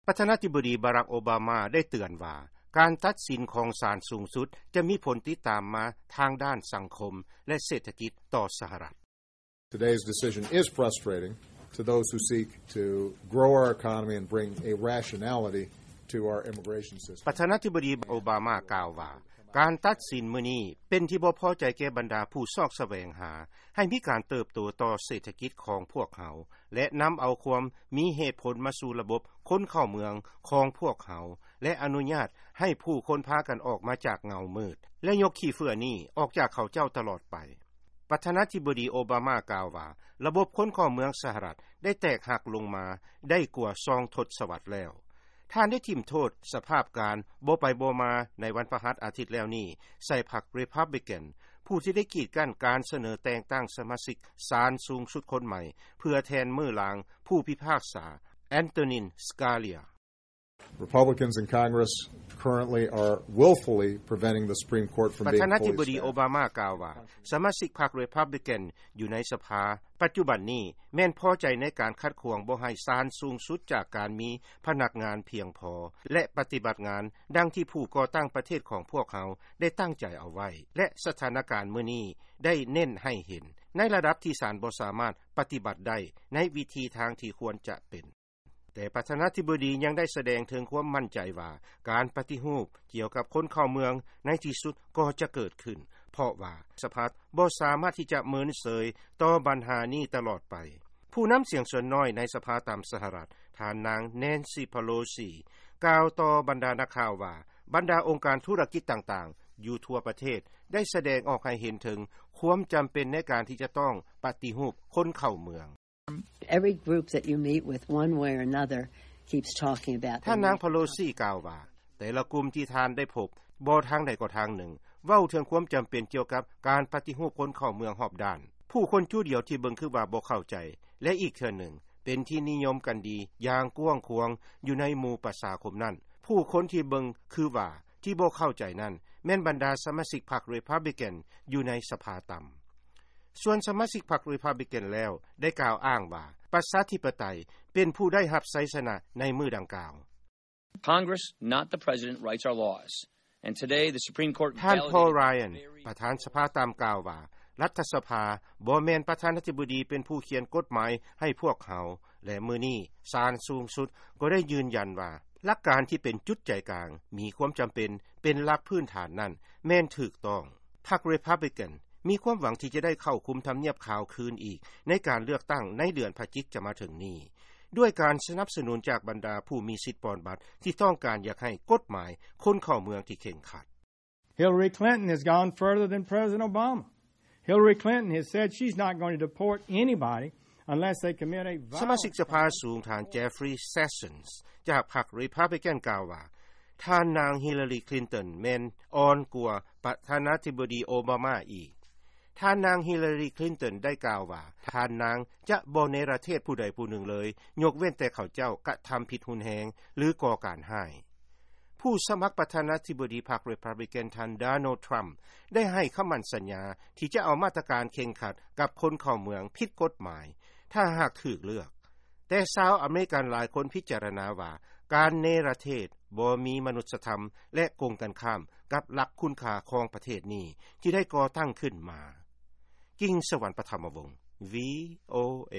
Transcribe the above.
ປະທານາທິບໍດີ ບາຣັກ ໂອບາມາ ໄດ້ເຕືອນວ່າ ການຕັດສິນຂອງສານສູງສຸດ ຈະມີຜົນຕິດຕາມມາທາງດ້ານສັງຄົມ ແລະ ເສດຖະກິດຕໍ່ສະຫະລັດ. Today's decision is frustrating to those who seek to grow our economy and bring a rationality to our immigration system. ປະທານາທິບໍດີ ໂອບາມາ ກ່າວວ່າ ການຕັດສິນມື້ນີ້ ເປັນທີ່ບໍ່ພໍໃຈແກ່ບັນດາຜູ້ຊອກສະແຫວງຫາ ໃຫ້ມີການເຕີບໂຕຕໍ່ເສດຖະກິດຂອງພວກເຮົາ ແລະ ນຳເອົາຄວາມມີເຫດຜົນມາສູ່ລະບົບຄົນເຂົ້າເມືອງຂອງພວກເຮົາ ແລະ ອະນຸຍາດໃຫ້ຜູ້ຄົນພາກັນອອກມາຈາກເງົາມືດ ແລະ ຍົກຂີ້ເຝື້ອນີ້ອອກຈາກເຂົາເຈົ້າຕະຫຼອດໄປ. ປະທານາທິບໍດີ ໂອບາມາ ກ່າວວ່າ ລະບົບຄົນເຂົ້າເມືອງສະຫະລັດ ໄດ້ແຕກຫັກລົງມາໄດ້ກວ່າສອງທົດສະວັດແລ້ວ. ທ່ານໄດ້ຖິ້ມໂທດສະພາບການບໍ່ໄປບໍ່ມາໃນວັນພະຫັດອາທິດແລ້ວນີ້ ໃສ່ພັກ Republican ຜູ້ທີ່ໄດ້ກີດກັ້ນການສະເໜີແຕ່ງຕັ້ງສະມາຊິກສານສູງສຸດຄົນໃໝ່ ເພື່ອແທນມື້ລາງຜູ້ພິພາກສາ Antonin Scalia. Republicans in Congress currently are willfully preventing the Supreme Court from ປະ being ທານາທິບໍດີ fully ໂອ staffed. ບາມາ ກ່າວວ່າ ສະມາຊິກພັກ Republican ຢູ່ໃນສະພາ ປັດຈຸບັນນີ້ ແມ່ນພໍໃຈໃນການຂັດຂວາງບໍ່ໃຫ້ສານສູງສຸດຈາກການມີພະນັກງານພຽງພໍ ແລະ ປະຕິບັດງານດັ່ງທີ່ຜູ້ກໍ່ຕັ້ງປະເທດຂອງພວກເຮົາໄດ້ຕັ້ງໃຈເອົາໄວ້ ແລະ ສະຖານະການມື້ນີ້ໄດ້ເນັ້ນໃຫ້ເຫັນ ໃນລະດັບທີ່ສານບໍ່ສາມາດປະຕິບັດໄດ້ໃນວິທີທາງທີ່ຄວນຈະເປັນ. ແຕ່ປະທານາທິບໍດີຍັງໄດ້ສະແດງເຖິງຄວາມໝັ້ນໃຈວ່າ ການປະຕິຮູບກ່ຽວກັບຄົນເຂົ້າເມືອງໃນທີ່ສຸດກໍຈະເກີດຂຶ້ນ ເພາະວ່າສະພາບໍ່ສາມາດທີ່ຈະເມີນເສີຍຕໍ່ບັນຫານີ້ຕະຫຼອດໄປ. ຜູ້ນຳສຽງສ່ວນນ້ອຍໃນສະພາຕ່ຳສະຫະລັດ ທ່ານນາງ Nancy Pelosi ກ່າວຕໍ່ບັນດານັກຂ່າວວ່າ ບັນດາອົງການທຸລະກິດຕ່າງໆຢູ່ທົ່ວປະເທດ ໄດ້ສະແດງອອກໃຫ້ເຫັນເຖິງຄວາມຈຳເປັນໃນການທີ່ຈະຕ້ອງປະຕິຮູບຄົນເຂົ້າເມືອງ. Every group that you meet with one way or another keeps talking about ທ່ານນາງ Pelosi ກ່າວວ່າ ແຕ່ລະກຸ່ມທີ່ທ່ານໄດ້ພົບ ບໍ່ທາງໃດກໍທາງໜຶ່ງ ເວົ້າເຖິງຄວາມຈຳເປັນກ່ຽວກັບການປະຕິຮູບຄົນເຂົ້າເມືອງຮອບດ້ານ. ຜູ້ຄົນຈຸດດຽວທີ່ເບິ່ງຄືວ່າບໍ່ເຂົ້າໃຈ ແລະ ອີກເທື່ອໜຶ່ງ ເປັນທີ່ນິຍົມກັນດີຢ່າງກວ້າງຂວາງຢູ່ໃນໝູ່ປະຊາຄົມນັ້ນ. ຜູ້ຄົນທີ່ເບິ່ງຄືວ່າທີ່ບໍ່ເຂົ້າໃຈນັ້ນ ແມ່ນບັນດາສະມາຊິກພັກ Republican ຢູ່ໃນສະພາຕ່ຳ. ສ່ວນສະມາຊິກພັກ Republican ແລ້ວ ໄດ້ກ່າວອ້າງວ່າ ປະຊາທິປະໄຕເປັນຜູ້ໄດ້ຮັບໄຊຊະນະໃນມື້ດັ່ງກ່າວ. Congress, not the president, writes our laws. And today, the Supreme Court ທ່ານ Paul Ryan ປະທານສະພາຕ່ຳ ກ່າວວ່າ ລັດຖະສະພາບໍ່ແມ່ນປະທານາທິບໍດີເປັນຜູ້ຂຽນກົດໝາຍໃຫ້ພວກເຮົາ ແລະ ມື້ນີ້ສານສູງສຸດກໍໄດ້ຢືນຢັນວ່າ ຫຼັກການທີ່ເປັນຈຸດໃຈກາງ ມີຄວາມຈຳເປັນເປັນຫຼັກພື້ນຖານນັ້ນແມ່ນຖືກຕ້ອງ. ພັກ Republican ມີຄວາມຫວັງທີ່ຈະໄດ້ເຂົ້າຄຸມທຳນຽບຂາວຄືນອີກ ໃນການເລືອກຕັ້ງໃນເດືອນພະຈິກຈະມາເຖິງນີ້ ດ້ວຍການສະໜັບສະໜູນຈາກບັນດາຜູ້ມີສິດປ່ອນບັດ ທີ່ຕ້ອງການຢາກໃຫ້ກົດໝາຍຄົນເຂົ້າເມືອງທີ່ເຄັ່ງຄັດ. Hillary Clinton has gone further than President Obama. Hillary Clinton has said she's not going to deport anybody unless they commit a violent ສະມາຊິກສະພາສູງ ທ່ານ Jeffrey Sessions ຈາກພັກ Republican ກ່າວວ່າ ທ່ານນາງ Hillary Clinton ແມ່ນອ່ອນກວ່າປະທານາທິບໍດີ ໂອບາມາ ອີກ. ທ່ານນາງ Hillary Clinton ໄດ້ກ່າວວ່າ ທ່ານນາງຈະບໍ່ເນລະເທດຜູ້ໃດຜູ້ໜຶ່ງເລີຍ ຍົກເວັ້ນແຕ່ເຂົາເຈົ້າກະທຳຜິດຮຸນແຮງ ຫຼື ກໍ່ການຮ້າຍ. ຜູ້ສະໝັກປະທານາທິບໍດີພັກ Republican ທ່ານ Donald Trump ໄດ້ໃຫ້ຄຳໝັ້ນສັນຍາທີ່ຈະເອົາມາດຕະການເຄັ່ງຄັດກັບຄົນເຂົ້າເມືອງຜິດກົດໝາຍ ຖ້າຫາກຖືກເລືອກ. ແຕ່ຊາວອາເມລິກັນຫຼາຍຄົນພິຈາລະນາວ່າ ການເນລະເທດບໍ່ມີມະນຸດສະທຳ ແລະ ກົງກັນຂ້າມກັບຫຼັກຄຸນຄ່າຂອງປະເທດນີ້ທີ່ໄດ້ກໍ່ຕັ້ງຂຶ້ນມາ. ກິງສະຫວັນ ປະທຳມະວົງ VOA.